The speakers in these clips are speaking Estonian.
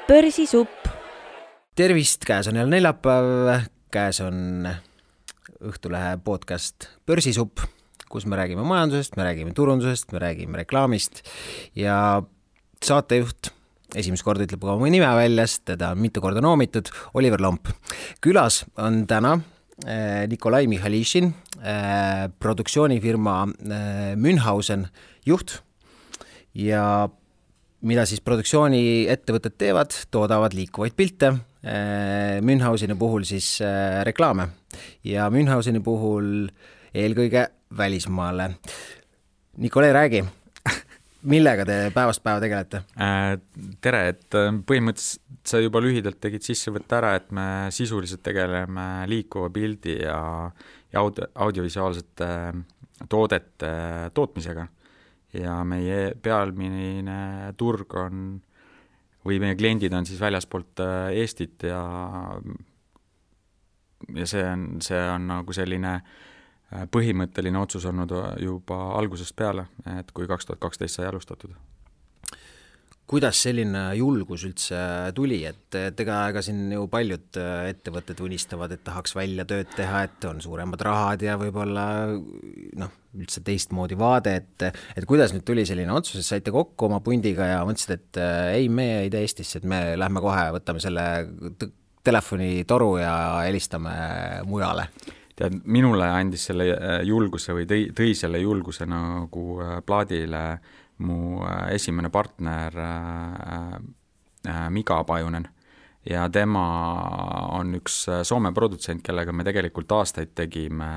Börsisupp. Tervist, käes on jälle neljapäev, käes on Õhtulehe podcast Börsisupp, kus me räägime majandusest, me räägime turundusest, me räägime reklaamist ja saatejuht esimest korda ütleb oma nime väljas, teda on mitu korda noomitud, Oliver Lomp. Külas on täna Nikolai Michalishin, produktsioonifirma Münchhausen juht ja mida siis produktsiooniettevõtted teevad, toodavad liikuvaid pilte, Münchhauseni puhul siis reklaame ja Münchhauseni puhul eelkõige välismaale. Nikolai, räägi, millega te päevast päeva tegelete? Tere, et põhimõtteliselt sa juba lühidalt tegid sissevõtta ära, et me sisuliselt tegeleme liikuva pildi ja audiovisuaalsete toodete tootmisega. Ja meie pealmine turg on, või meie kliendid on siis väljaspoolt Eestit ja see on nagu selline põhimõtteline otsus olnud juba algusest peale, et kui 2012 sai alustatud. Kuidas selline julgus üldse tuli, et ega siin ju paljud ettevõtted unistavad, et tahaks välja tööd teha, et on suuremad rahad ja võib-olla üldse teistmoodi vaade, et kuidas nüüd tuli selline otsus, et saite kokku oma pundiga ja mõtlesid, et ei, me ei tee Eestisse, et me lähme kohe, võtame selle telefonitoru ja helistame mujale. Tead, minule andis selle julguse või tõi selle julguse nagu plaadile mu esimene partner Mika Pajunen ja tema on üks Soome produtsent, kellega me tegelikult aastaid tegime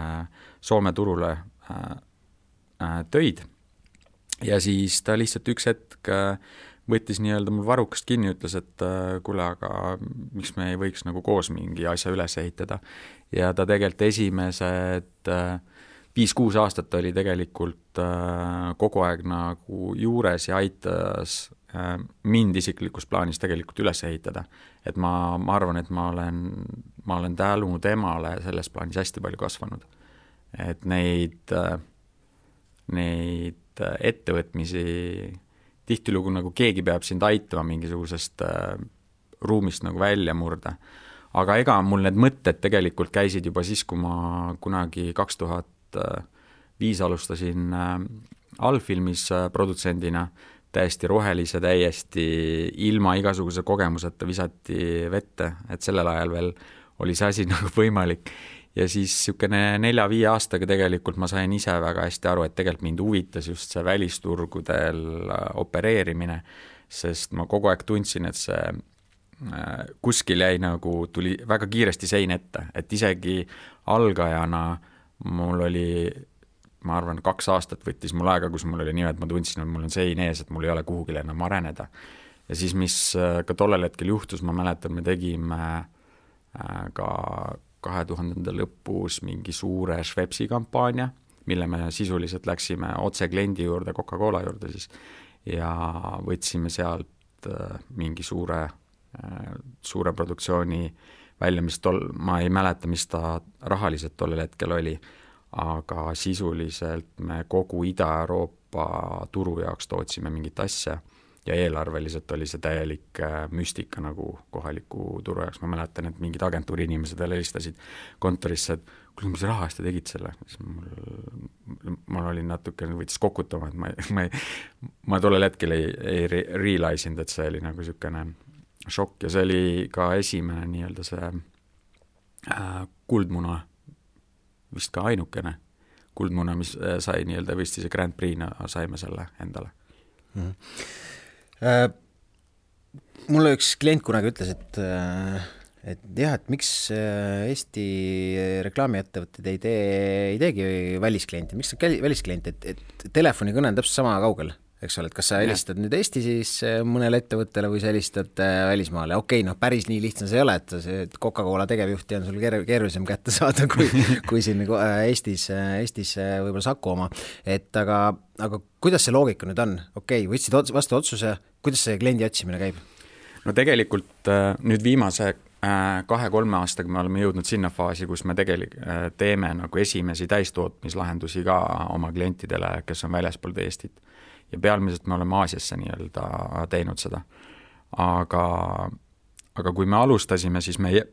Soome turule töid ja siis ta lihtsalt üks hetk võttis nii-öelda mul varrukast kinni, ütles, et kuule, aga miks me ei võiks nagu koos mingi asja üles ehitada ja ta tegelikult esimesed 5-6 aastat oli tegelikult kogu aeg nagu juures ja aitas mind isiklikus plaanis tegelikult üles ehitada. Et ma arvan, et ma olen tänu temale selles plaanis hästi palju kasvanud. Et neid ettevõtmisi tihtilugu nagu keegi peab sind aitama mingisugusest ruumist nagu välja murda. Aga ega mul need mõtted tegelikult käisid juba siis, kui ma kunagi 2005 alustasin allfilmis produtsendina, täiesti rohelise, täiesti ilma igasuguse kogemuseta visati vette, et sellel ajal veel oli see asi nagu võimalik. Ja siis niisugune 4-5 aastaga tegelikult ma sain ise väga hästi aru, et tegelikult mind huvitas just see välisturgudel opereerimine, sest ma kogu aeg tundsin, et see kuskil jäi nagu, tuli väga kiiresti sein ette, et isegi algajana mul oli, ma arvan, 2 aastat võttis mul aega, kus mul oli nii, et ma tundsin, et mul on sein ees, et mul ei ole kuhugile enam areneda. Ja siis, mis ka tollel hetkel juhtus, ma mäletan, me tegime ka 2000 lõpus mingi suure Schweppesi kampaania, mille me sisuliselt läksime otse kliendi juurde, Coca-Cola juurde siis, ja võtsime sealt mingi suure produktsiooni välja, mis ma ei mäleta, mis ta rahaliselt tollel hetkel oli, aga sisuliselt me kogu Ida-Euroopa turu jaoks tootsime mingit asja ja eelarveliselt oli see täielik müstika nagu kohaliku turu jaoks. Ma mäletan, et mingid agentuuri inimesed veel helistasid kontorisse, et kuule, mis raha eest te tegid selle? Mul oli natuke, võitis kokutama, et ma tollel hetkel ei realise'inud, et see oli nagu niisugune šokk ja see oli ka esimene nii-öelda see kuldmuna, vist ka ainukene kuldmuna, mis sai nii-öelda võistlise Grand Prix'na, saime selle endale. Mulle üks klient kunagi ütles, et miks Eesti reklaamiettevõtted ei teegi välisklienti, miks on välisklienti, et telefonikõne on täpselt sama kaugel. Eks ole, et kas sa helistad nüüd Eesti siis mõnele ettevõttele või sa helistad välismaale. Okei, päris nii lihtsam see ei ole, et Coca-Cola tegevjuhti on sul keerulisem kätte saada kui siin Eestis võib-olla Saku oma. Aga kuidas see loogika nüüd on? Okei, võtsid vastu otsuse, kuidas see kliendi otsimine käib? No tegelikult nüüd viimase 2-3 aastaga me oleme jõudnud sinna faasi, kus me tegelikult teeme nagu esimesi täistootmislahendusi ka oma klientidele, kes on väljaspool Eestit. Ja pealmiselt me oleme Aasiasse nii-öelda teinud seda. aga kui me alustasime, siis meie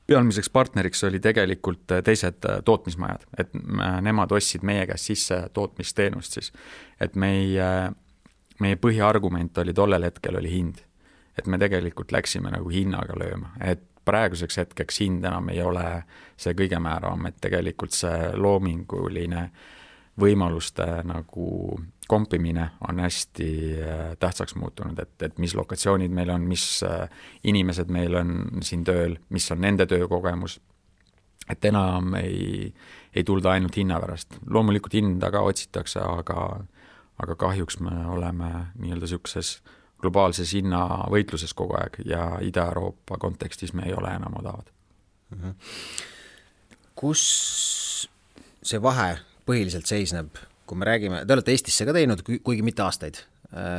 pealmiseks partneriks oli tegelikult teised tootmismajad, et nemad ostsid meie käest sisse tootmisteenust siis. Et meie põhiargument oli tollel hetkel oli hind. Et me tegelikult läksime nagu hinnaga lööma, et praeguseks hetkeks hind enam ei ole see kõige määravam, et tegelikult see loominguline võimaluste nagu kompimine on hästi tähtsaks muutunud, et mis lokatsioonid meil on, mis inimesed meil on siin tööl, mis on nende töökogemus, et enam ei tulda ainult hinna pärast. Loomulikult hinda ka otsitakse, aga kahjuks me oleme nii-öelda siukses globaalses hinnavõitluses kogu aeg ja Ida-Euroopa kontekstis me ei ole enam odavad. Kus see vahe põhiliselt seisneb, kui me räägime, te olete Eestisse ka teinud, kuigi mitte aastaid.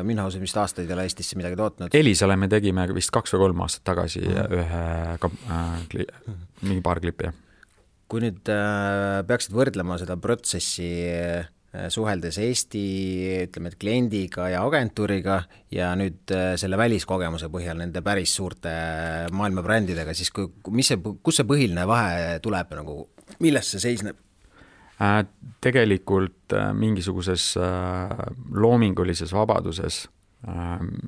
Münhausen vist aastaid ei ole Eestisse midagi tootnud. Elisale me tegime vist 2 või 3 aastat tagasi mingi paar klippi. Kui nüüd peaksid võrdlema seda protsessi suheldes Eesti, ütleme, et kliendiga ja agentuuriga ja nüüd selle väliskogemuse põhjal nende päris suurte maailmabrändidega, siis kus see põhiline vahe tuleb, nagu, milles see seisneb? Tegelikult mingisuguses loomingulises vabaduses,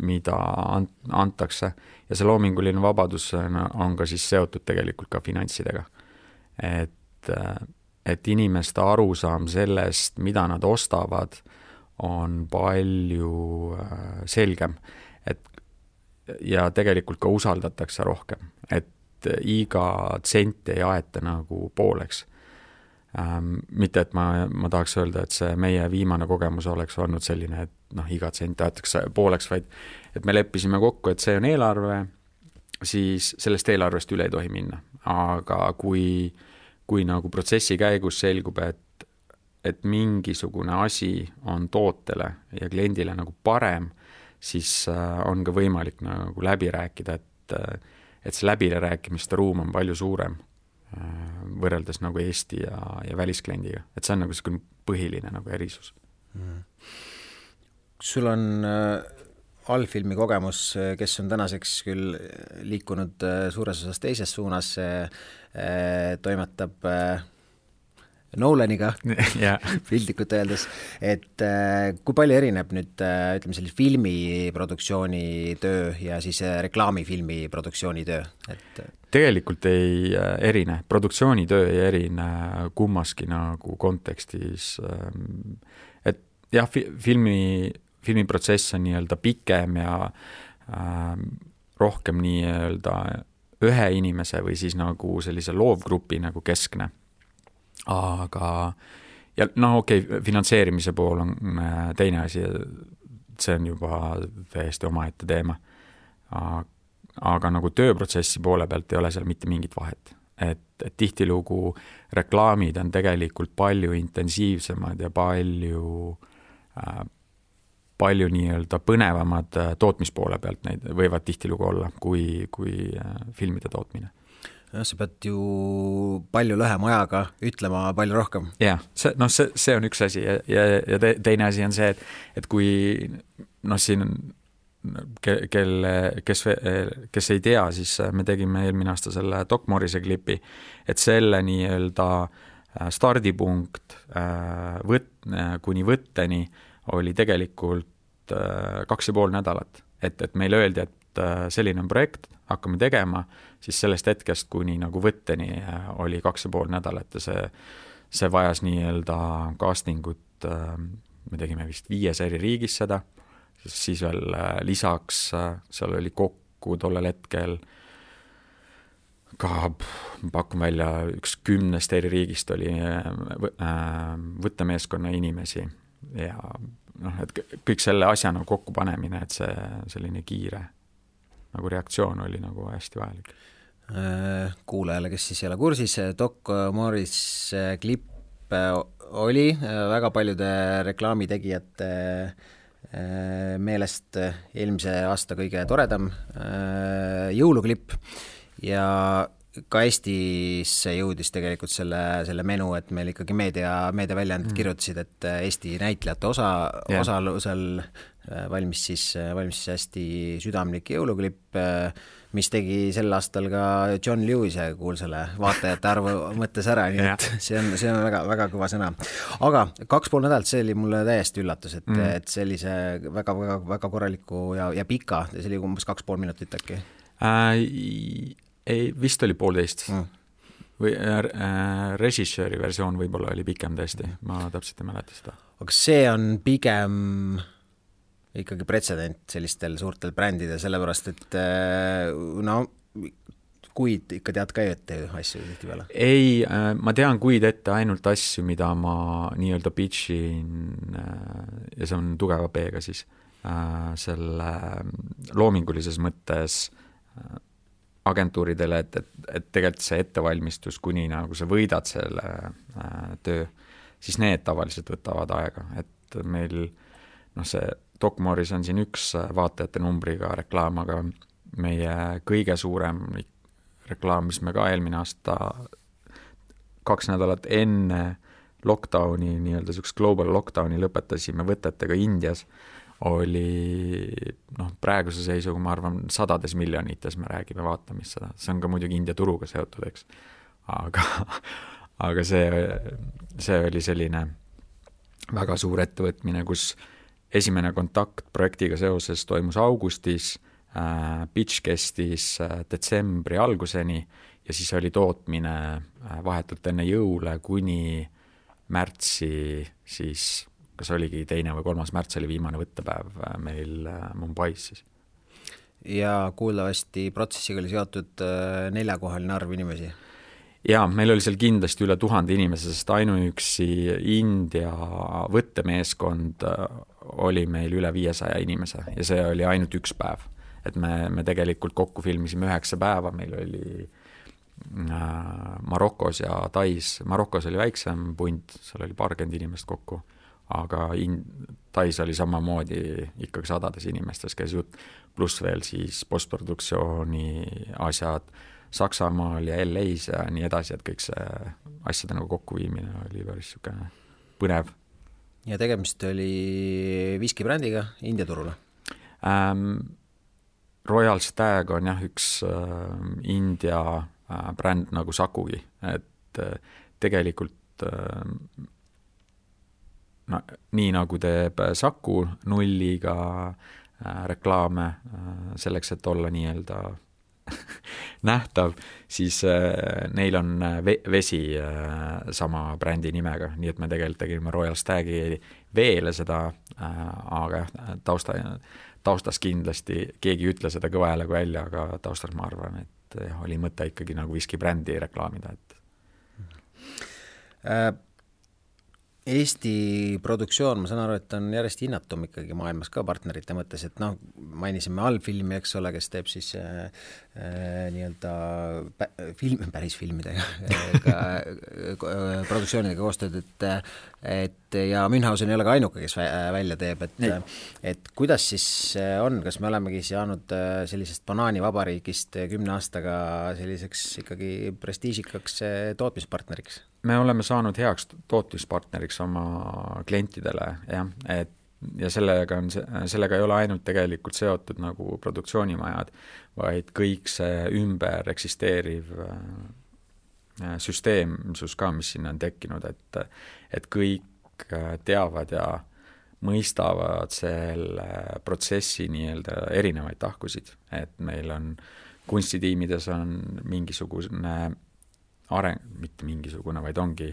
mida antakse ja see loominguline vabadus on ka siis seotud tegelikult ka finantsidega. Et inimeste arusaam sellest, mida nad ostavad, on palju selgem. Ja tegelikult ka usaldatakse rohkem, et iga tsent ei aeta nagu pooleks. Mitte, et ma tahaks öelda, et see meie viimane kogemus oleks olnud selline, et iga tsent aetakse pooleks, vaid et me leppisime kokku, et see on eelarve, siis sellest eelarvest üle ei tohi minna. Aga kui nagu protsessi käigus selgub, et mingisugune asi on tootele ja kliendile nagu parem, siis on ka võimalik nagu läbi rääkida, et see läbirääkimiste ruum on palju suurem võrreldes nagu Eesti ja väliskliendiga. Et see on nagu selline põhiline nagu erisus. Sul on allfilmi kogemus, kes on tänaseks küll liikunud suures osas teises suunas, toimetab Nolaniga piltlikult öeldes, et kui palju erineb nüüd, ütleme, sellise filmiproduktsiooni töö ja siis reklaamifilmi produktsiooni töö? Tegelikult ei erine, produktsioonitöö ei erine kummaski nagu kontekstis, et jah, filmiprotsess on nii-öelda pikem ja rohkem nii-öelda ühe inimese või siis nagu sellise loovgrupi nagu keskne. Aga ja finantseerimise pool on teine asi, see on juba täiesti omaette teema. Aga nagu tööprotsessi poole pealt ei ole seal mitte mingit vahet. Et tihtilugu reklaamid on tegelikult palju intensiivsemad ja palju nii-öelda põnevamad tootmispoole pealt neid võivad tihtilugu olla kui filmide tootmine. Ja, sa pead ju palju lühema ajaga ütlema palju rohkem. Jah, see on üks asi ja teine asi on see, et kui siin kes ei tea, siis me tegime eelmine aasta selle Doc Morrise klipi, et selle nii-öelda stardipunkt kuni võtteni oli tegelikult 2,5 nädalat. Et meile öeldi, et selline on projekt, hakkame tegema, siis sellest hetkest kuni nagu võtteni oli 2,5 nädalat ja see vajas nii-öelda castingut, me tegime vist 5 eri riigis seda, siis veel lisaks seal oli kokku tollel hetkel ka pakun välja 10 eri riigist oli võttemeeskonna inimesi ja et kõik selle asja nagu kokku panemine, et see selline kiire nagu reaktsioon oli nagu hästi vajalik. Kuulajale, kes siis ei ole kursis, Doc Morrise klipp oli väga paljude reklaamitegijate meelest eelmise aasta kõige toredam jõuluklipp ja ka Eestisse jõudis tegelikult selle menu, et meil ikkagi meediaväljaanded kirjutasid, et Eesti näitlejate osalusel valmis siis hästi südamlik jõuluklipp, mis tegi sel aastal ka John Lewise kuulsale vaatajate arvu mõttes ära, nii et see on väga, väga kõva sõna. Aga 2,5 nädalat, see oli mulle täiesti üllatus, et sellise väga, väga, väga korraliku ja pika, see oli umbes 2,5 minutit äkki. Ei, vist oli 1,5 või režissööri versioon võib-olla oli pikem tõesti, ma täpselt ei mäleta seda. Aga see on pigem ikkagi pretsedent sellistel suurtel brändidel, sellepärast et kuid ikka tead ka ette asju tihti peale? Ei, ma tean kuid ette ainult asju, mida ma nii-öelda pitchin ja see on tugeva B-ga siis selle loomingulises mõttes agentuuridele, et tegelikult see ettevalmistus, kuni nagu sa võidad selle töö, siis need tavaliselt võtavad aega, et meil see Doc Morris on siin üks vaatajate numbriga reklaam, aga meie kõige suurem reklaam, mis me ka eelmine aasta 2 nädalat enne lockdowni, nii-öelda selleks global lockdowni lõpetasime võtetega Indias, oli praeguse seisuga, ma arvan, 100 miljonites me räägime vaatamist seda. See on ka muidugi India turuga seotud, eks. Aga see oli selline väga suur ettevõtmine, kus esimene kontakt projektiga seoses toimus augustis, pitch kestis detsembri alguseni ja siis oli tootmine vahetult enne jõule kuni märtsi siis kas oligi 2. või 3. märts oli viimane võttepäev meil Mumbais siis. Ja kuuldavasti protsessiga oli seotud 4-kohaline arv inimesi? Jaa, meil oli seal kindlasti üle 1000 inimese, sest ainuüksi India võttemeeskond oli meil üle 500 inimese ja see oli ainult üks päev. Et me tegelikult kokku filmisime 9 päeva, meil oli Marokos ja Tais. Marokos oli väiksem punt, seal oli 20 inimest kokku. Aga Tais oli samamoodi ikkagi 100 inimestes käis jutt, pluss veel siis postproduktsiooni asjad Saksamaal ja LA-s ja nii edasi, et kõik see asjade nagu kokkuviimine oli päris põnev. Ja tegemist oli viskibrändiga India turule? Royal Stag on jah üks India bränd nagu Sakugi, et tegelikult nii nagu teeb Saku nulliga reklaame selleks, et olla nii-öelda nähtav, siis neil on vesi sama brändi nimega, nii et me tegelikult tegime Royal Stagi veele seda, aga taustas kindlasti keegi ei ütle seda kõva häälega välja, aga taustas ma arvan, et oli mõte ikkagi nagu viskibrändi reklaamida. Eesti produktsioon, ma saan aru, et on järjest hinnatum ikkagi maailmas ka partnerite mõttes, et mainisime allfilmi, eks ole, kes teeb siis nii-öelda päris filmidega produktsioonidega koostööd, et ja Münchhausen ei ole ka ainuke, kes välja teeb, et kuidas siis on, kas me olemegi saanud sellisest banaanivabariigist 10 aastaga selliseks ikkagi prestiižikaks tootmispartneriks? Me oleme saanud heaks tootmispartneriks oma klientidele, jah, ja sellega ei ole ainult tegelikult seotud nagu produktsioonimajad, vaid kõik see ümber eksisteeriv süsteemsus ka, mis sinna on tekkinud, et kõik teavad ja mõistavad selle protsessi nii-öelda erinevaid tahkusid, et meil on kunstitiimides on mingisugune mitte mingisugune, vaid ongi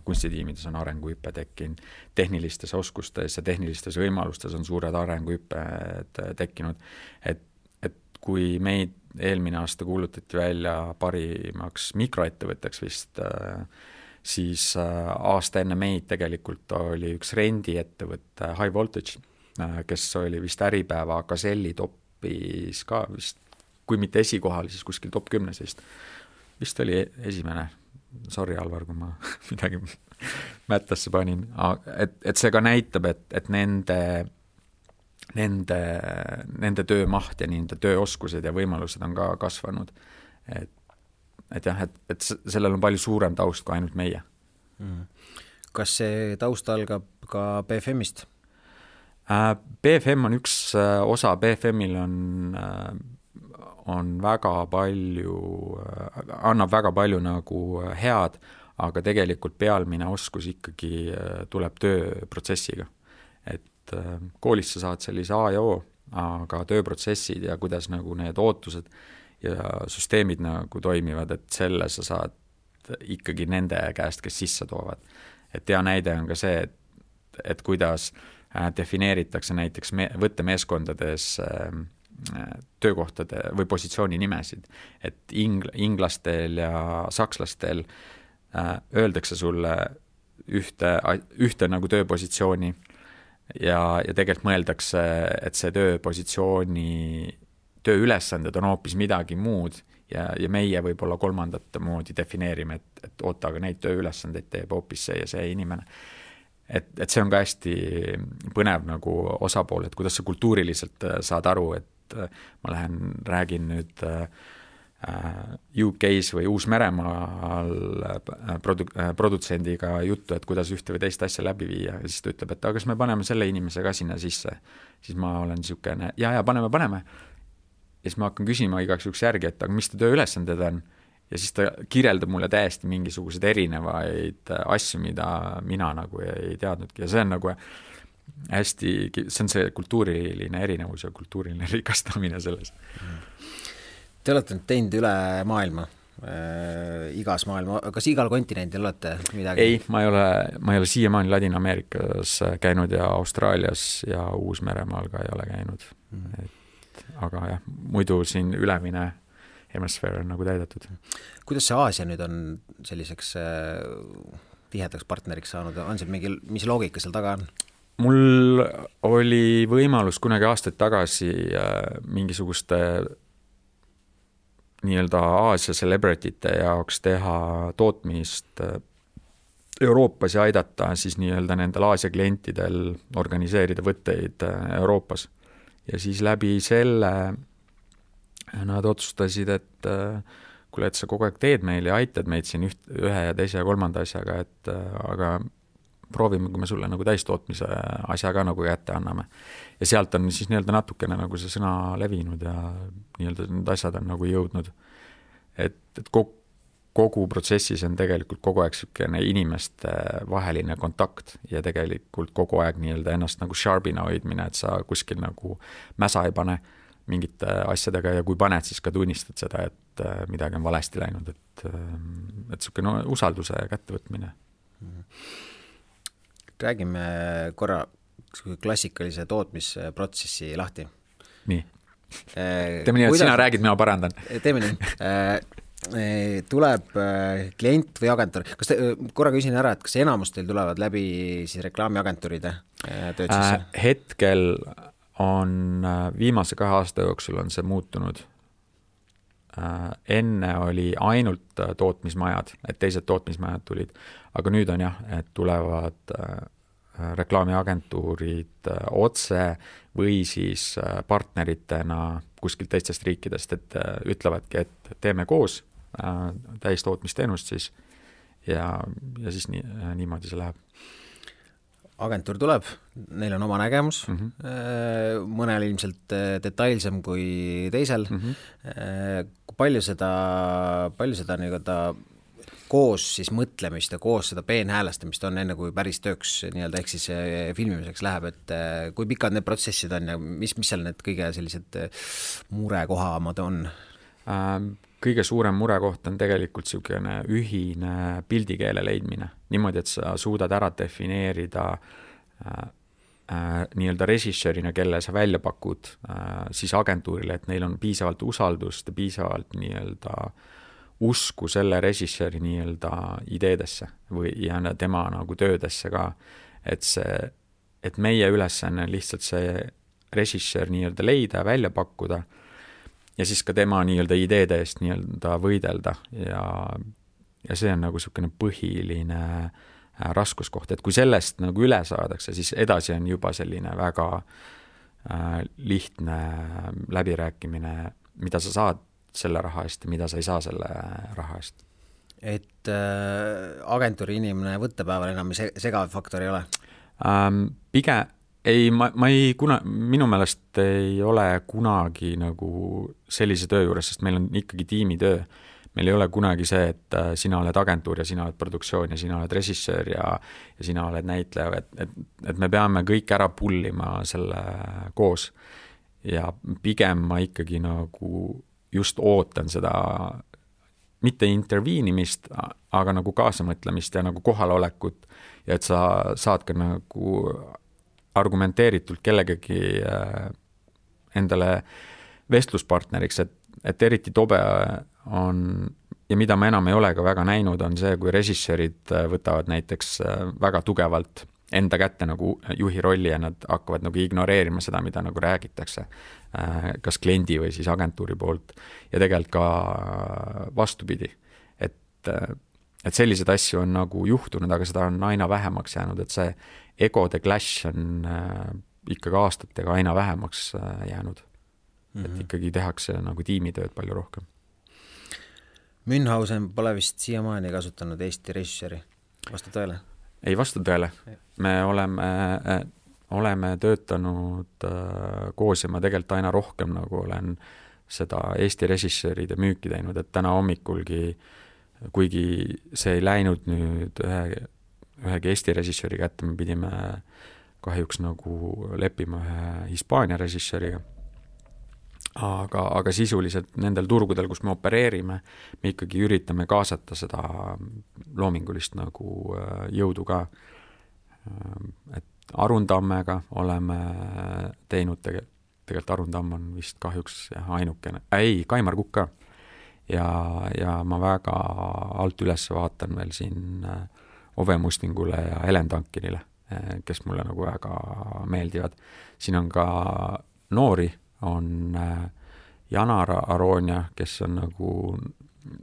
kunstitiimides on arenguhüppe tekkinud, tehnilistes oskustes ja tehnilistes võimalustes on suured arenguhüpped tekkinud, et kui meid eelmine aasta kuulutati välja parimaks mikroettevõtteks vist, siis aasta enne meid tegelikult oli üks rendiettevõtte High Voltage, kes oli vist Äripäeva Gazelli topis ka vist, kui mitte esikohal, siis kuskil top 10 vist oli esimene, sorry Alvar, kui ma midagi mättasse panin, et see ka näitab, et nende töömaht ja nende tööoskused ja võimalused on ka kasvanud, et jah, et sellel on palju suurem taust kui ainult meie. Kas see taust algab ka BFM-ist? BFM on üks osa, BFM-il on väga palju, annab väga palju nagu head, aga tegelikult pealmine oskus ikkagi tuleb tööprotsessiga. Et koolis sa saad sellise A ja O, aga tööprotsessid ja kuidas nagu need ootused ja süsteemid nagu toimivad, et selle sa saad ikkagi nende käest, kes sisse toovad. Et hea näide on ka see, et kuidas defineeritakse näiteks võttemeeskondades töökohtade või positsiooni nimesid, et inglastel ja sakslastel öeldakse sulle ühte nagu tööpositsiooni ja tegelikult mõeldakse, et see tööülesanded on hoopis midagi muud ja meie võib-olla kolmandat moodi defineerime, et oota, aga neid tööülesandeid teeb hoopis see ja see inimene. Et see on ka hästi põnev nagu osapool, et kuidas sa kultuuriliselt saad aru, et ma räägin nüüd UK-s või Uus-Meremaal produtsendiga juttu, et kuidas ühte või teist asja läbi viia ja siis ta ütleb, et aga kas me paneme selle inimese ka sinna sisse, siis ma olen niisugune, ja paneme. Ja siis ma hakkan küsima igaks juhuks järgi, et aga mis ta tööülesanded on ja siis ta kirjeldab mulle täiesti mingisugused erinevaid asju, mida mina nagu ei teadnudki ja see on nagu hästi, see on see kultuuriline erinevus ja kultuuriline rikastamine selles. Te olete nüüd teinud üle maailma, igas maailma, kas igal kontinendil olete midagi? Ei, ma ei ole siiamaani Ladina-Ameerikas käinud ja Austraalias ja Uus-Meremaal ka ei ole käinud. Aga jah, muidu siin ülemine hemisfäär on nagu täidetud. Kuidas see Aasia nüüd on selliseks tihedaks partneriks saanud? On see mingi, mis loogika seal taga on? Mul oli võimalus kunagi aastaid tagasi mingisuguste nii-öelda Aasia celebrity'te jaoks teha tootmist Euroopas ja aidata siis nii-öelda nendel Aasia klientidel organiseerida võtteid Euroopas. Ja siis läbi selle nad otsustasid, et kuule, et sa kogu aeg teed meil ja aitad meid siin ühe ja teise ja kolmanda asjaga, et aga proovime, kui me sulle nagu täistootmise asja ka nagu kätte anname. Ja sealt on siis nii-öelda natukene nagu see sõna levinud ja nii-öelda need asjad on nagu jõudnud. Et kogu protsessis on tegelikult kogu aeg selline inimeste vaheline kontakt ja tegelikult kogu aeg nii-öelda ennast nagu sharpina hoidmine, et sa kuskil nagu mäsa ei pane mingite asjadega ja kui paned, siis ka tunnistad seda, et midagi on valesti läinud, et selline usalduse kättevõtmine. Räägime korra klassikalise tootmisprotsessi lahti. Nii. Teeme nii, et sina räägid, mina parandan. Teeme nii. Tuleb klient või agentuur. Kas korra küsin ära, et kas enamus teil tulevad läbi siis reklaamiagentuuride tööd sisse? Hetkel on viimase 2 aasta jooksul on see muutunud. Enne oli ainult tootmismajad, et teised tootmismajad tulid, aga nüüd on jah, et tulevad reklaamiagentuurid otse või siis partneritena kuskilt teistest riikidest, et ütlevadki, et teeme koos täistootmisteenust siis ja siis niimoodi see läheb. Agentuur tuleb, neil on oma nägemus, mõnel ilmselt detailsem kui teisel. Palju seda nii-öelda koos siis mõtlemist ja koos seda peenhäälestamist on enne, kui päris tööks nii-öelda ehk siis filmimiseks läheb, et kui pikad need protsessid on ja mis seal need kõige sellised murekohamad on? Kõige suurem murekoht on tegelikult selline ühine pildikeele leidmine. Niimoodi, et sa suudad ära defineerida nii-öelda režissöörina, kelle sa välja pakud siis agentuurile, et neil on piisavalt usaldust ja piisavalt nii-öelda usku selle režissööri nii-öelda ideedesse ja tema nagu töödesse ka. Et meie ülesanne on lihtsalt see režissöör nii-öelda leida ja välja pakkuda ja siis ka tema nii-öelda ideede eest nii-öelda võidelda ja see on nagu selline põhiline raskuskoht, et kui sellest nagu üle saadakse, siis edasi on juba selline väga lihtne läbirääkimine, mida sa saad selle raha eest ja mida sa ei saa selle raha eest. Et agentuuri inimene võttepäeval enam segav faktor ei ole? Pigem ei, ma ei minu meelest ei ole kunagi nagu sellise töö juures, sest meil on ikkagi tiimitöö. Meil ei ole kunagi see, et sina oled agentuur ja sina oled produktsioon ja sina oled režissöör ja sina oled näitleja, et me peame kõik ära pullima selle koos. Ja pigem ma ikkagi nagu just ootan seda, mitte interviinimist, aga nagu kaasamõtlemist ja nagu kohalolekut ja et sa saad ka nagu argumenteeritult kellegagi endale vestluspartneriks, et eriti tobe on ja mida ma enam ei ole ka väga näinud, on see, kui režissöörid võtavad näiteks väga tugevalt enda kätte nagu juhi rolli ja nad hakkavad nagu ignoreerima seda, mida nagu räägitakse, kas kliendi või siis agentuuri poolt ja tegelikult ka vastupidi. Et sellised asju on nagu juhtunud, aga seda on aina vähemaks jäänud, et see egode clash on ikkagi aastatega aina vähemaks jäänud. Et ikkagi tehakse nagu tiimitööd palju rohkem. Münchhausen pole vist siiamaani kasutanud Eesti režissööri, vastu tõele? Ei vasta tõele. Me oleme töötanud koos ja ma tegelikult aina rohkem nagu olen seda Eesti režissööride müüki teinud, et täna hommikulgi, kuigi see ei läinud nüüd ühegi Eesti režissööri kätte, me pidime kahjuks nagu leppima ühe Hispaania režissööriga. Aga sisuliselt nendel turgudel, kus me opereerime, me ikkagi üritame kaasata seda loomingulist nagu jõudu ka. Et Arundammega oleme teinud, tegelikult Arundamm on vist kahjuks ainukene, Kaimar Kukk ka. Ja ma väga alt üles vaatan veel siin Ove Mustingule ja Helen Tankinile, kes mulle nagu väga meeldivad. Siin on ka noori, on Janar Aronia, kes on nagu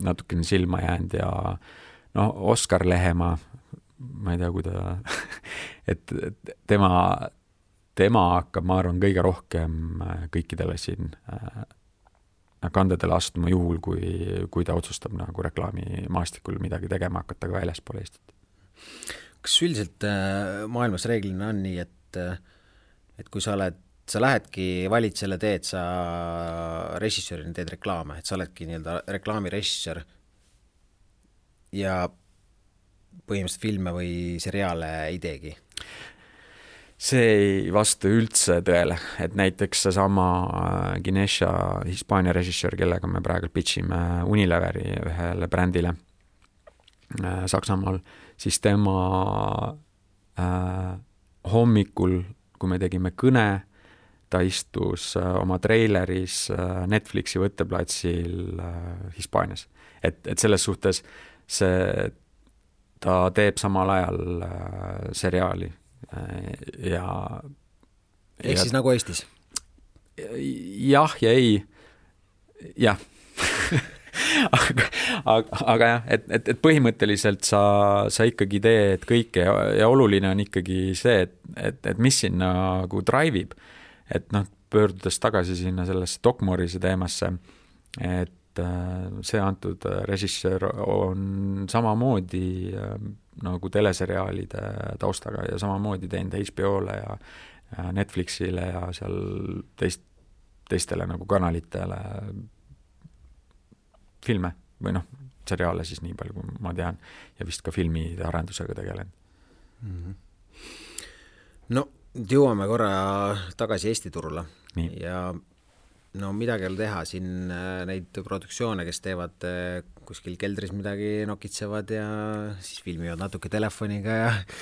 natukene silma jäänud ja Oskar Lehemaa, ma ei tea, kui ta et tema hakkab, ma arvan, kõige rohkem kõikidele siin kandedele astuma juhul, kui ta otsustab nagu reklaamimaastikul midagi tegema hakata ka väljaspool Eestit. Kas üldiselt maailmas reeglina on nii, et kui sa lähedki valid selle teed, sa režissöörina teed reklaame, et sa oledki nii-öelda reklaamirežissöör ja põhimõtteliselt filme või seriaale ei teegi? See ei vasta üldse tõele, et näiteks seesama Ginesha Hispaania režissöör, kellega me praegu pitchime Unileveri ühele brändile Saksamaal, siis tema hommikul, kui me tegime kõne, ta istus oma treileris Netflixi võtteplatsil Hispaanias. Et selles suhtes ta teeb samal ajal seriaali ja siis nagu Eestis? Jah ja ei. Jah. aga jah, et põhimõtteliselt sa ikkagi teed kõike ja oluline on ikkagi see, et mis siin nagu drive'ib. Et pöördudes tagasi sinna sellesse Dokmorise teemasse, et see antud režissöör on samamoodi nagu teleseriaalide taustaga ja samamoodi teinud HBO-le ja Netflixile ja seal teistele nagu kanalitele filme või seriaale siis nii palju, kui ma tean, ja vist ka filmide arendusega tegelen. No, jõuame korra tagasi Eesti turule. Nii. Ja midagi ei ole teha, siin neid produktsioone, kes teevad kuskil keldris midagi nokitsevad ja siis filmivad natuke telefoniga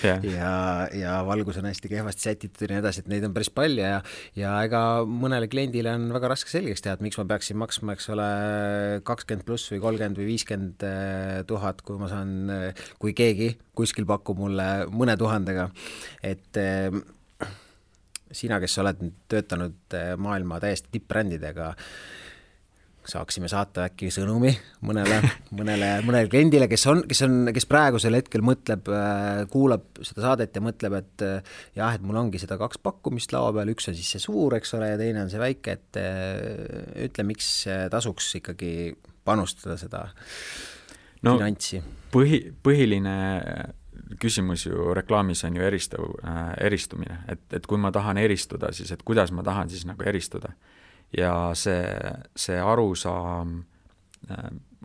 ja valgus on hästi kehvasti sätitud ja nii edasi, et neid on päris palju ja ega mõnele kliendile on väga raske selgeks teha, et miks ma peaksin maksma, eks ole, 20 pluss või 30 või 50 000, kui ma saan, kui keegi kuskil pakub mulle mõne tuhandega, et sina, kes oled töötanud maailma täiesti tippbrändidega, saaksime saata äkki sõnumi mõnele kliendile, kes praegusel hetkel mõtleb, kuulab seda saadet ja mõtleb, et jah, et mul ongi seda 2 pakkumist laua peal, üks on siis see suur, eks ole, ja teine on see väike, et ütle, miks tasuks ikkagi panustada seda finantsi? Põhiline küsimus ju reklaamis on ju eristumine, et kui ma tahan eristuda, siis et kuidas ma tahan siis nagu eristuda. Ja see arusaam,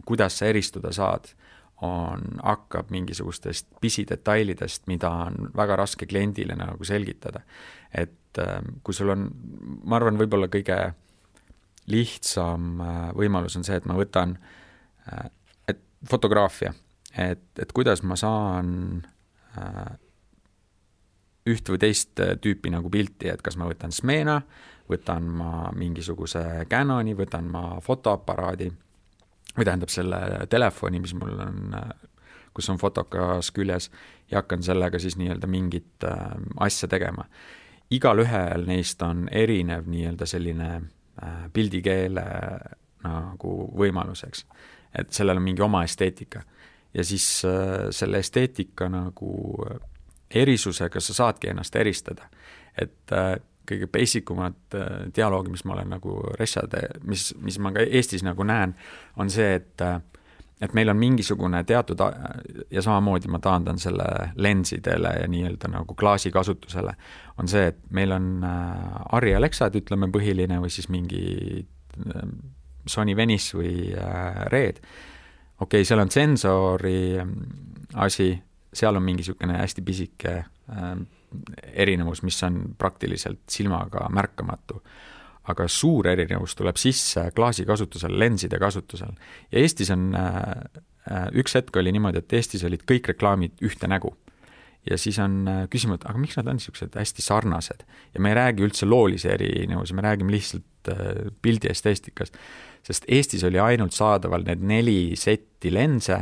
kuidas sa eristuda saad, hakkab mingisugustest pisidetailidest, mida on väga raske kliendile nagu selgitada. Et kui sul on, ma arvan, võib-olla kõige lihtsam võimalus on see, et ma võtan fotograafia, et kuidas ma saan üht või teist tüüpi nagu pilti, et kas ma võtan Smena, võtan ma mingisuguse Canoni, võtan ma fotoaparaadi või tähendab selle telefoni, mis mul on, kus on fotokas küljes ja hakkan sellega siis nii-öelda mingit asja tegema. Igal ühel neist on erinev nii-öelda selline pildikeele nagu võimaluseks, et sellel on mingi oma esteetika. Ja siis selle esteetika nagu erisusega sa saadki ennast eristada. Et kõige basicumad dialoogi, mis ma olen nagu mis ma ka Eestis nagu näen, on see, et meil on mingisugune teatud, ja samamoodi ma taandan selle lensidele ja nii-öelda nagu klaasi kasutusele, on see, et meil on Arri Alexad, ütleme põhiline, või siis mingi Sony Venice või Red. Okei, seal on sensori asi, seal on mingisugune hästi pisike erinevus, mis on praktiliselt silmaga märkamatu. Aga suur erinevus tuleb sisse klaasi kasutusel, lenside kasutusel. Ja Eestis on, üks hetk oli niimoodi, et Eestis olid kõik reklaamid ühte nägu. Ja siis on küsimus, aga miks nad on niisugused hästi sarnased? Ja me ei räägi üldse loolise erinevus, me räägime lihtsalt pildi esteestikas. Sest Eestis oli ainult saadaval need 4 setti lense,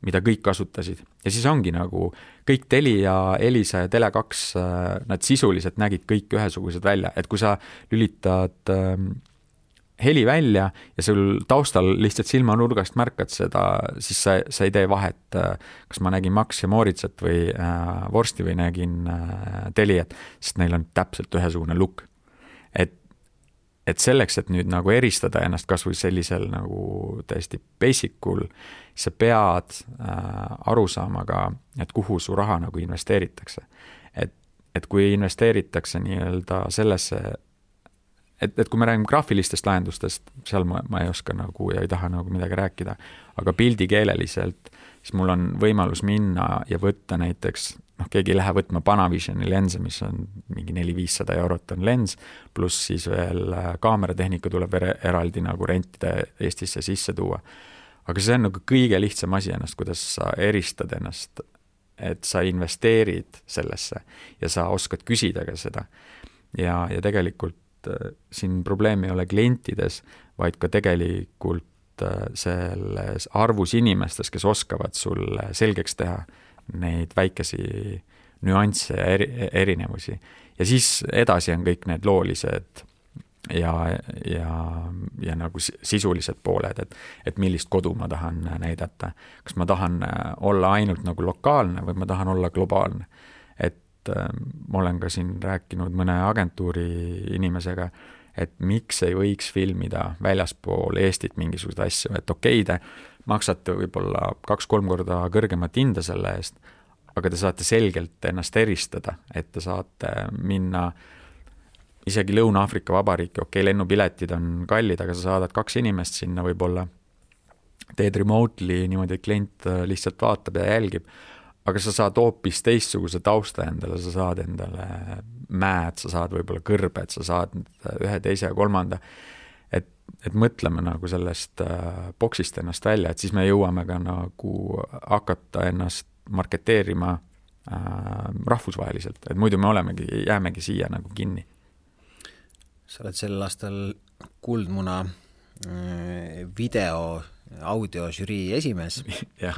mida kõik kasutasid. Ja siis ongi nagu kõik Telia, Elisa ja Tele2, nad sisuliselt nägid kõik ühesugused välja. Et kui sa lülitad heli välja ja sul taustal lihtsalt silmanurgast märkad seda, siis sa ei tee vahet, kas ma nägin Max ja Moritsat või Vorsti või nägin Teliat, sest neil on täpselt ühesugune look. Et selleks, et nüüd nagu eristada ennast kas või sellisel nagu täiesti basicul, sa pead aru saama ka, et kuhu su raha nagu investeeritakse. Et kui investeeritakse nii-öelda sellesse, et kui me räägime graafilistest lahendustest, seal ma ei oska nagu ja ei taha nagu midagi rääkida, aga pildikeeleliselt, siis mul on võimalus minna ja võtta näiteks, keegi ei lähe võtma Panavisioni lense, mis on mingi 400-500 eurot on lens, pluss siis veel kaameratehnika tuleb eraldi nagu rentida Eestisse sisse tuua. Aga see on nagu kõige lihtsam asi ennast, kuidas sa eristad ennast, et sa investeerid sellesse ja sa oskad küsida ka seda. Ja tegelikult siin probleem ei ole klientides, vaid ka tegelikult selles arvus inimestes, kes oskavad sulle selgeks teha neid väikesi nüansse ja erinevusi. Ja siis edasi on kõik need loolised ja nagu sisulised pooled, et millist kodu ma tahan näidata. Kas ma tahan olla ainult nagu lokaalne või ma tahan olla globaalne. Ma olen ka siin rääkinud mõne agentuuri inimesega, et miks ei võiks filmida väljaspool Eestit mingisugused asju, et okei, te maksate võib-olla 2-3 korda kõrgemat hinda selle eest, aga te saate selgelt ennast eristada, et te saate minna isegi Lõuna-Aafrika Vabariiki, okei, lennupiletid on kallid, aga sa saadad 2 inimest sinna võib-olla, teed remotely niimoodi, et klient lihtsalt vaatab ja jälgib, aga sa saad hoopis teistsuguse tausta endale, sa saad endale mäed, sa saad võib-olla kõrbed, sa saad 1, 2 ja 3. Et mõtleme nagu sellest boksist ennast välja, et siis me jõuame ka nagu hakata ennast marketeerima rahvusvaheliselt, et muidu me jäämegi siia nagu kinni. Sa oled sel aastal Kuldmuna video audio žürii esimees. Jah.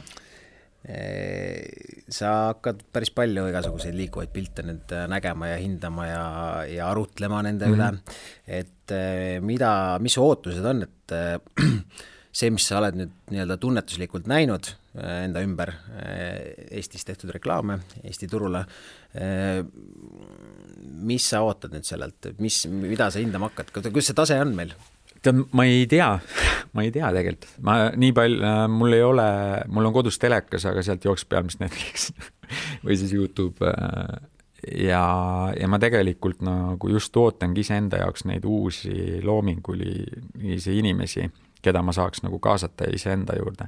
sa hakkad päris palju igasuguseid liikuvaid pilte nüüd nägema ja hindama ja arutlema nende üle, et mis ootused on, et see, mis sa oled nüüd nii-öelda tunnetuslikult näinud enda ümber Eestis tehtud reklaame Eesti turule, mis sa ootad nüüd sellelt, mida sa hindama hakkad, kuidas see tase on meil? Ma ei tea tegelikult. Nii palju, mul on kodus telekas, aga sealt jookseb pealmist Netflix või siis YouTube ja ma tegelikult nagu just ootangi iseenda jaoks neid uusi loomingulisi inimesi, keda ma saaks nagu kaasata iseenda juurde.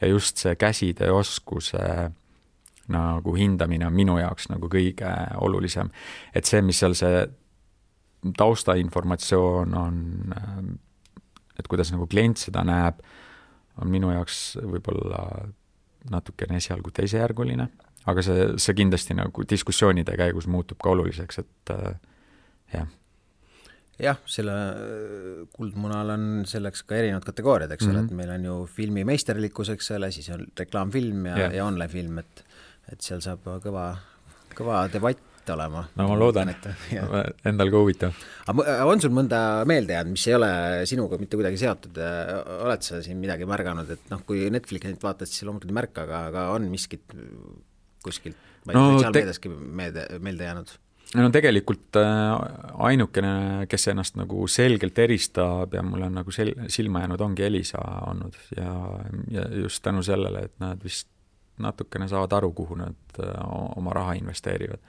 Ja just see käsitööoskuse nagu hindamine on minu jaoks nagu kõige olulisem. Et see, mis seal see taustainformatsioon on, et kuidas nagu klient seda näeb, on minu jaoks võib-olla natukene esialgu teisejärguline, aga see kindlasti nagu diskussioonide käigus muutub ka oluliseks, et jah. Jah, selle Kuldmunal on selleks ka erinevad kategooriad, eks ole, et meil on ju filmi meisterlikkus, eks ole, siis on reklaamfilm ja online film, et seal saab kõva debatt olema. No ma loodan, endal ka huvitav. On sul mõnda meelde jäänud, mis ei ole sinuga mitte kuidagi seotud? Oled sa siin midagi märganud, et kui Netflixit vaatad, siis loomulikult ei märka, aga on miskit kuskilt, ma ei sotsiaalmeediaski meelde jäänud? No tegelikult ainukene, kes ennast nagu selgelt eristab ja mul on nagu silma jäänud, ongi Elisa olnud ja just tänu sellele, et nad vist natukene saavad aru, kuhu nad oma raha investeerivad.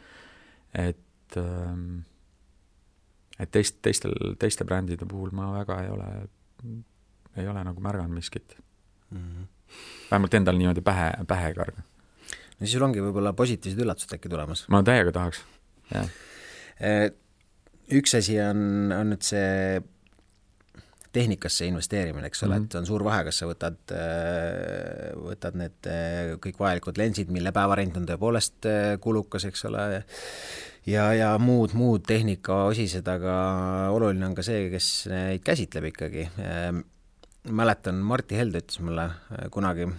Et teiste brändide puhul ma väga ei ole nagu märganud miskit. Vähemalt endal niimoodi pähe karga. No siis sul ongi võib-olla positiivsed üllatused äkki tulemas. Ma täiega tahaks, jah. Üks asi on nüüd see tehnikasse investeerimine, eks ole, et on suur vahe, kas sa võtad need kõik vajalikud lensid, mille päevarent on tõepoolest kulukas, eks ole, ja muud tehnika osised, aga oluline on ka see, kes neid käsitleb ikkagi. Mäletan, Martti Helde ütles mulle kunagi,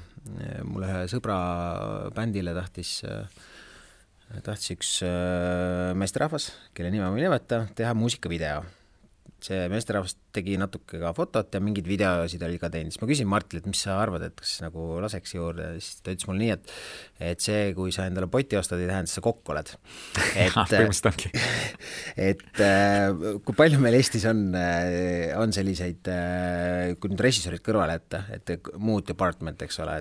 mulle ühe sõbra bändile tahtis üks meesterahvas, kelle nime ma ei nimeta, teha muusikavideo. See meesterahvas tegi natuke ka fotot ja mingid videosid oli ka teinud. Siis ma küsin Martile, et mis sa arvad, et kas nagu laseks juurde, siis ta ütles mulle nii, et see, kui sa endale poti ostad, ei tähenda, sa kokku oled. Et kui palju meil Eestis on selliseid, kui nüüd režissoorid kõrvale et muud department, eks ole,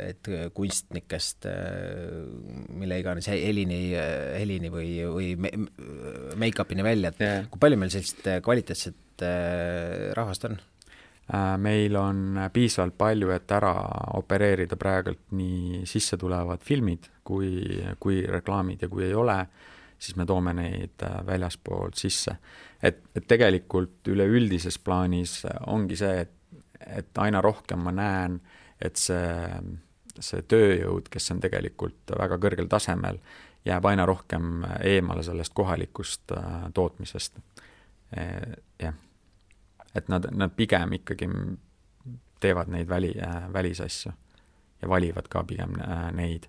et kunstnikest, mille iganes helini või make-upini välja, et kui palju meil sellist kvaliteetset rahvast on? Meil on piisavalt palju, et ära opereerida praegult nii sisse tulevad filmid kui reklaamid ja kui ei ole, siis me toome neid väljaspoolt sisse. Et tegelikult üleüldises plaanis ongi see, et aina rohkem ma näen, et see tööjõud, kes on tegelikult väga kõrgel tasemel, jääb aina rohkem eemale sellest kohalikust tootmisest. Jah. Et nad pigem ikkagi teevad neid välisasju ja valivad ka pigem neid.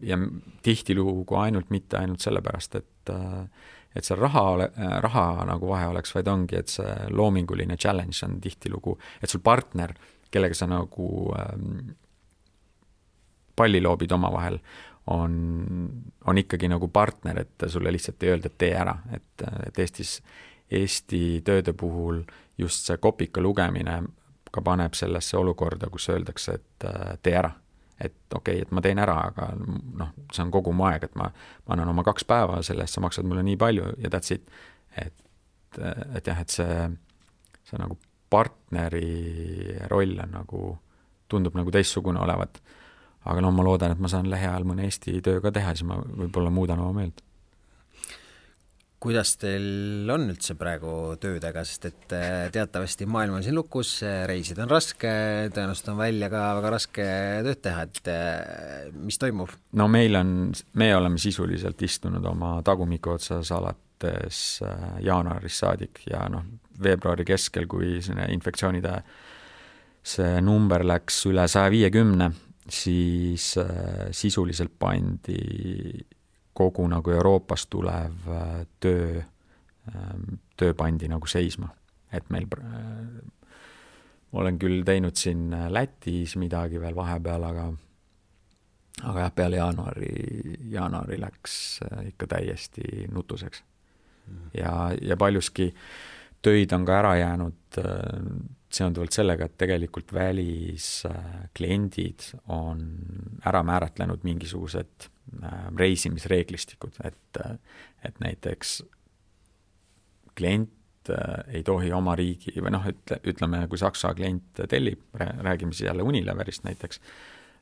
Ja tihtilugu mitte ainult sellepärast, et see raha nagu vahe oleks, vaid ongi, et see loominguline challenge on tihtilugu, et sul partner, kellega sa nagu palli loobid oma vahel, on ikkagi nagu partner, et sulle lihtsalt ei öelda, et tee ära, et Eesti tööde puhul just see kopika lugemine ka paneb sellesse olukorda, kus öeldakse, et tee ära. Et okei, et ma teen ära, aga see on kogu mu aeg, et ma annan oma 2 päeva sellest, sa maksad mulle nii palju ja that's it. Et jah, et see nagu partneri roll on nagu, tundub nagu teistsugune olevat. Aga ma loodan, et ma saan lähiajal mõne Eesti töö ka teha, siis ma võib-olla muudan oma meelt. Kuidas teil on üldse praegu töödega, sest et teatavasti maailm on siin lukus, reisid on raske, tõenäoliselt on välja ka väga raske tööd teha, et mis toimub? No me oleme sisuliselt istunud oma tagumiku otsas alates jaanuaris saadik ja veebruari keskel, kui infektsioonide see number läks üle 150, siis sisuliselt pandi kogu nagu Euroopast tulev töö pandi nagu seisma. Et meil olen küll teinud siin Lätis midagi veel vahepeal, aga jah, peale jaanuari läks ikka täiesti nutuseks. Ja paljuski töid on ka ära jäänud seonduvalt sellega, et tegelikult väliskliendid on ära määratlenud mingisugused reisimisreeglistikud, et näiteks klient ei tohi oma riigi, või ütleme, kui Saksa klient tellib, räägime siis jälle Unileverist näiteks,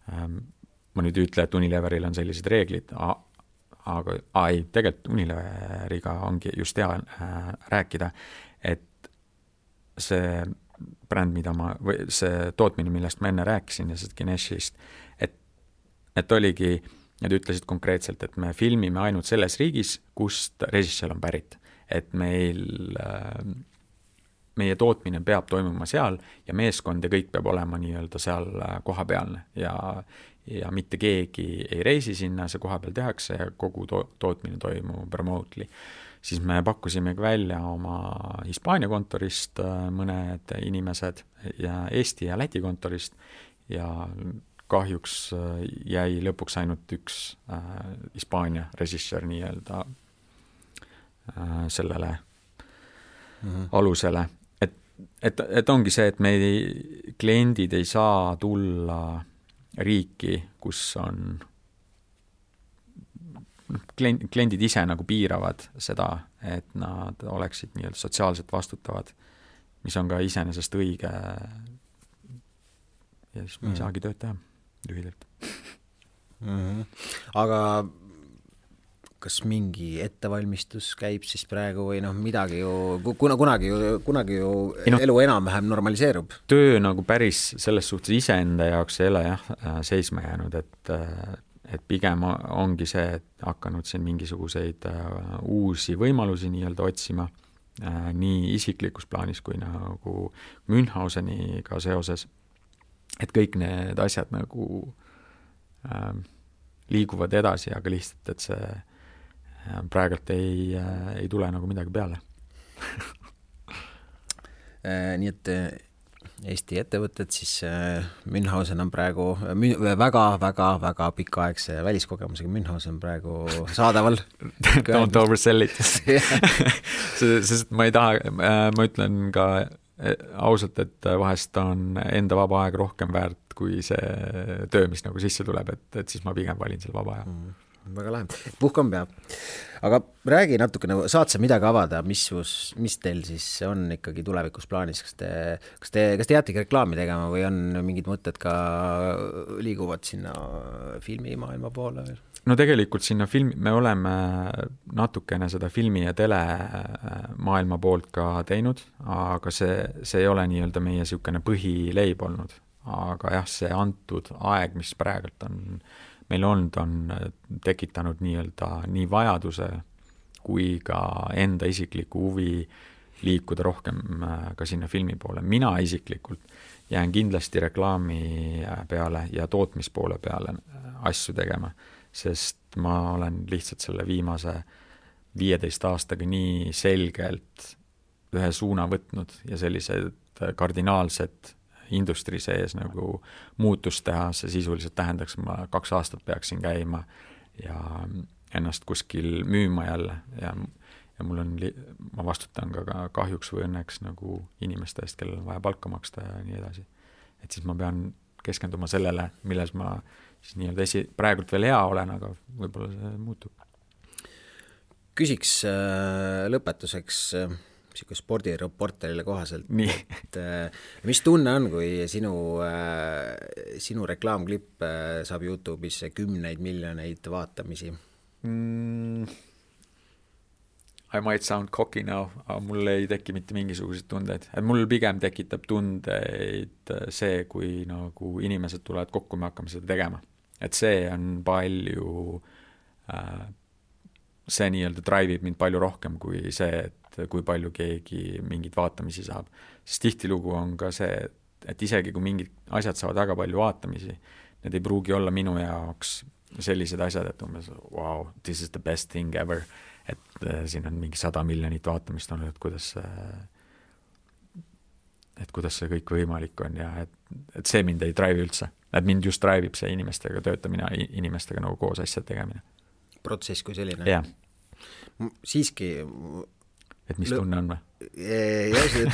ma nüüd ütle, et Unileveril on sellised reeglid, aga ei, tegelikult Unileveriga ongi just hea rääkida, et see bränd, või see tootmine, millest ma enne rääkisin ja sellest Geneshist, et oligi, nad ütlesid konkreetselt, et me filmime ainult selles riigis, kust režissöör on pärit. Et meie tootmine peab toimuma seal ja meeskond ja kõik peab olema nii-öelda seal kohapealne ja mitte keegi ei reisi sinna, see kohapeal tehakse ja kogu tootmine toimub remotely. Siis me pakkusimegi välja oma Hispaania kontorist mõned inimesed ja Eesti ja Läti kontorist ja kahjuks jäi lõpuks ainult üks Hispaania režissöör nii-öelda sellele alusele. Et ongi see, et meie kliendid ei saa tulla riiki, kus on kliendid ise nagu piiravad seda, et nad oleksid nii-öelda sotsiaalselt vastutavad, mis on ka iseenesest õige ja siis me ei saagi tööd teha lühidalt. Aga kas mingi ettevalmistus käib siis praegu või midagi ju, kunagi ju elu enam-vähem normaliseerub? Töö nagu päris selles suhtes iseenda jaoks ei ole seisma jäänud, et pigem ongi see, et hakanud siin mingisuguseid uusi võimalusi nii-öelda otsima, nii isiklikus plaanis kui nagu Münchhauseniga seoses, et kõik need asjad nagu liiguvad edasi, aga lihtsalt, et see praegult ei tule nagu midagi peale. Nii et Eesti ettevõtted, siis Münchhausen on praegu väga pikaaegse väliskogemusega Münchhausen praegu saadaval. Don't oversell it. Sest ma ei taha, ma ütlen ka ausalt, et vahest on enda vaba aeg rohkem väärt kui see töö, mis nagu sisse tuleb, et siis ma pigem valin selle vaba aja. Väga lahe. Puhkam peab. Aga räägi natukene, saad sa midagi avada, mis teil siis on ikkagi tulevikus plaanis? Kas te jäätegi reklaami tegema või on mingid mõtted ka liiguvad sinna filmimaailma poole? No tegelikult sinna me oleme natukene seda filmi ja tele maailma poolt ka teinud, aga see ei ole nii-öelda meie siukene põhileib olnud. Aga jah, see antud aeg, mis praegult on meil on tekitanud nii-öelda nii vajaduse kui ka enda isikliku huvi liikuda rohkem ka sinna filmi poole. Mina isiklikult jään kindlasti reklaami peale ja tootmispoole peale asju tegema, sest ma olen lihtsalt selle viimase 15 aastaga nii selgelt ühe suuna võtnud ja sellised kardinaalsed industri sees nagu muutust teha, see sisuliselt tähendaks, ma 2 aastat peaksin käima ja ennast kuskil müüma jälle ja mul on, ma vastutan ka kahjuks või õnneks nagu inimeste eest, kellel on vaja palka maksta ja nii edasi. Et siis ma pean keskenduma sellele, milles ma siis nii-öelda praegult veel hea olen, aga võib-olla see muutub. Küsiks lõpetuseks siuke spordireporterile kohaselt, et mis tunne on, kui sinu reklaamklipp saab YouTube'is 10 miljoneid vaatamisi? I might sound cocky now, aga mul ei teki mitte mingisuguseid tundeid. Et mul pigem tekitab tundeid see, kui nagu inimesed tulevad kokku, me hakkame seda tegema. Et see on palju, see nii-öelda drive'ib mind palju rohkem kui see, et kui palju keegi mingid vaatamisi saab. Sest tihtilugu on ka see, et isegi kui mingid asjad saavad väga palju vaatamisi, need ei pruugi olla minu jaoks sellised asjad, et umbes wow, this is the best thing ever, et siin on mingi 100 miljonit vaatamist olnud, et kuidas see kõik võimalik on ja et see mind ei drive üldse. Et mind just drive'ib see inimestega töötamine, inimestega nagu koos asjad tegemine. Protsess kui selline? Jah. Siiski... Et mis tunne on või? Jah, see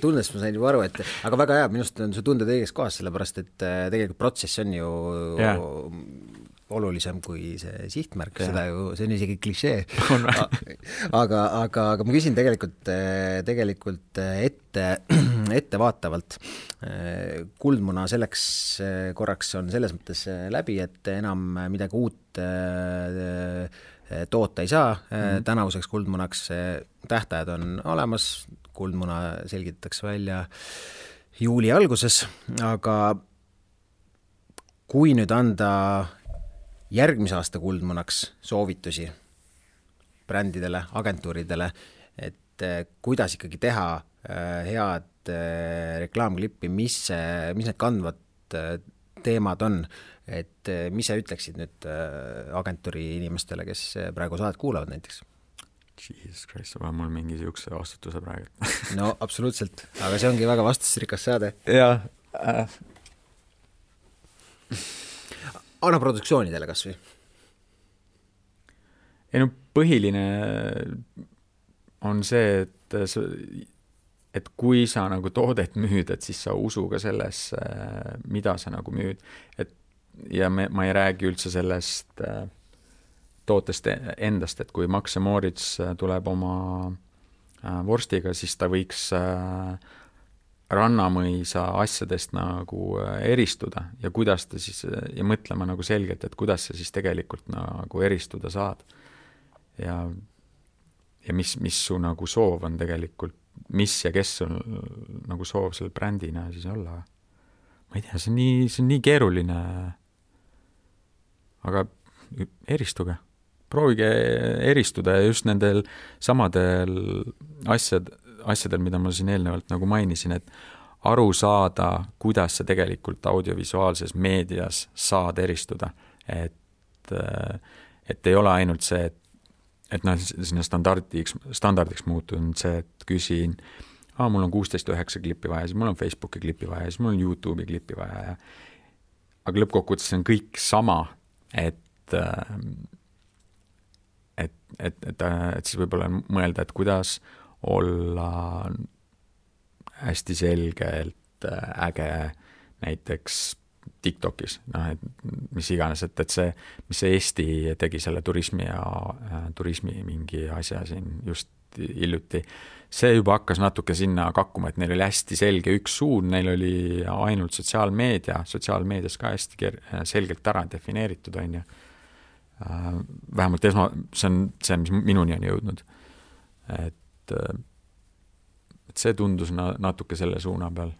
tunnest ma sain juba aru, et aga väga hea, minust on see tunded õiges kohas, sellepärast et tegelikult protsess on ju olulisem kui see sihtmärk, seda ju, see on isegi klišee. aga ma küsin tegelikult ettevaatavalt. Kuldmuna selleks korraks on selles mõttes läbi, et enam midagi uut toota ei saa. Tänavuseks kuldmunaks tähtajad on olemas, kuldmuna selgitatakse välja juuli alguses, aga kui nüüd anda järgmise aasta kuldmunaks soovitusi brändidele, agentuuridele, et kuidas ikkagi teha head reklaamklippi, mis need kandvad teemad on, et mis sa ütleksid nüüd agentuuri inimestele, kes praegu saadet kuulavad näiteks? Jesus Christ, sa pead mul mingi siukse vastutuse praegu. No absoluutselt, aga see ongi väga vastusrikas saade. Jah. Anna produktsioonidele kas või? Ei no põhiline on see, et kui sa nagu toodet müüd, et siis sa usu ka sellesse, mida sa nagu müüd. Ja ma ei räägi üldse sellest tootest endast, et kui Max & Moritz tuleb oma vorstiga, siis ta võiks Rannamõisa asjadest nagu eristuda ja kuidas ta siis, ja mõtlema nagu selgelt, et kuidas sa siis tegelikult nagu eristuda saad. Ja mis su nagu soov on tegelikult, mis ja kes on nagu soov selle brändina siis olla. Ma ei tea, see on nii keeruline, aga eristuge. Proovige eristuda ja just nendel samadel asjadel, mida ma siin eelnevalt nagu mainisin, et aru saada, kuidas sa tegelikult audiovisuaalses meedias saad eristuda. Et ei ole ainult see, et sinna standardiks muutunud see, et küsin, mul on 16.9 klippi vaja, siis mul on Facebooki klippi vaja, siis mul on YouTube'i klippi vaja. Aga lõppkokkuvõttes on kõik sama, et siis võib-olla mõelda, et kuidas olla hästi selgelt äge näiteks TikTokis, mis iganes, et see, mis see Eesti tegi selle turismi mingi asja siin just hiljuti, see juba hakkas natuke sinna kakkuma, et neil oli hästi selge üks suund, neil oli ainult sotsiaalmeedias ka hästi selgelt ära defineeritud, on ju. Vähemalt see on see, mis minuni on jõudnud. Et see tundus natuke selle suuna peal.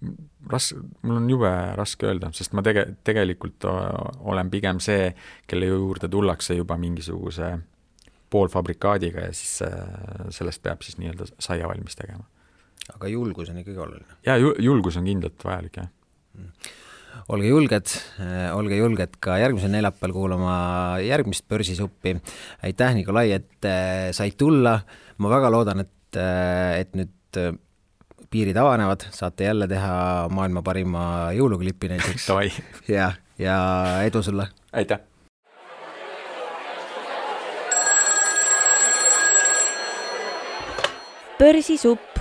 Mul on jube raske öelda, sest ma tegelikult olen pigem see, kelle juurde tullakse juba mingisuguse poolfabrikaadiga ja siis sellest peab siis nii-öelda saia valmis tegema. Aga julgus on ikkagi oluline. Ja julgus on kindlalt vajalik, jah. Olge julged ka järgmisel neljapäeval kuulama järgmist Börsisuppi. Aitäh, Nikolai, et said tulla. Ma väga loodan, et nüüd piirid avanevad, saate jälle teha maailma parima jõuluklipi näiteks. ja edu sulle. Aitäh. Börsisupp.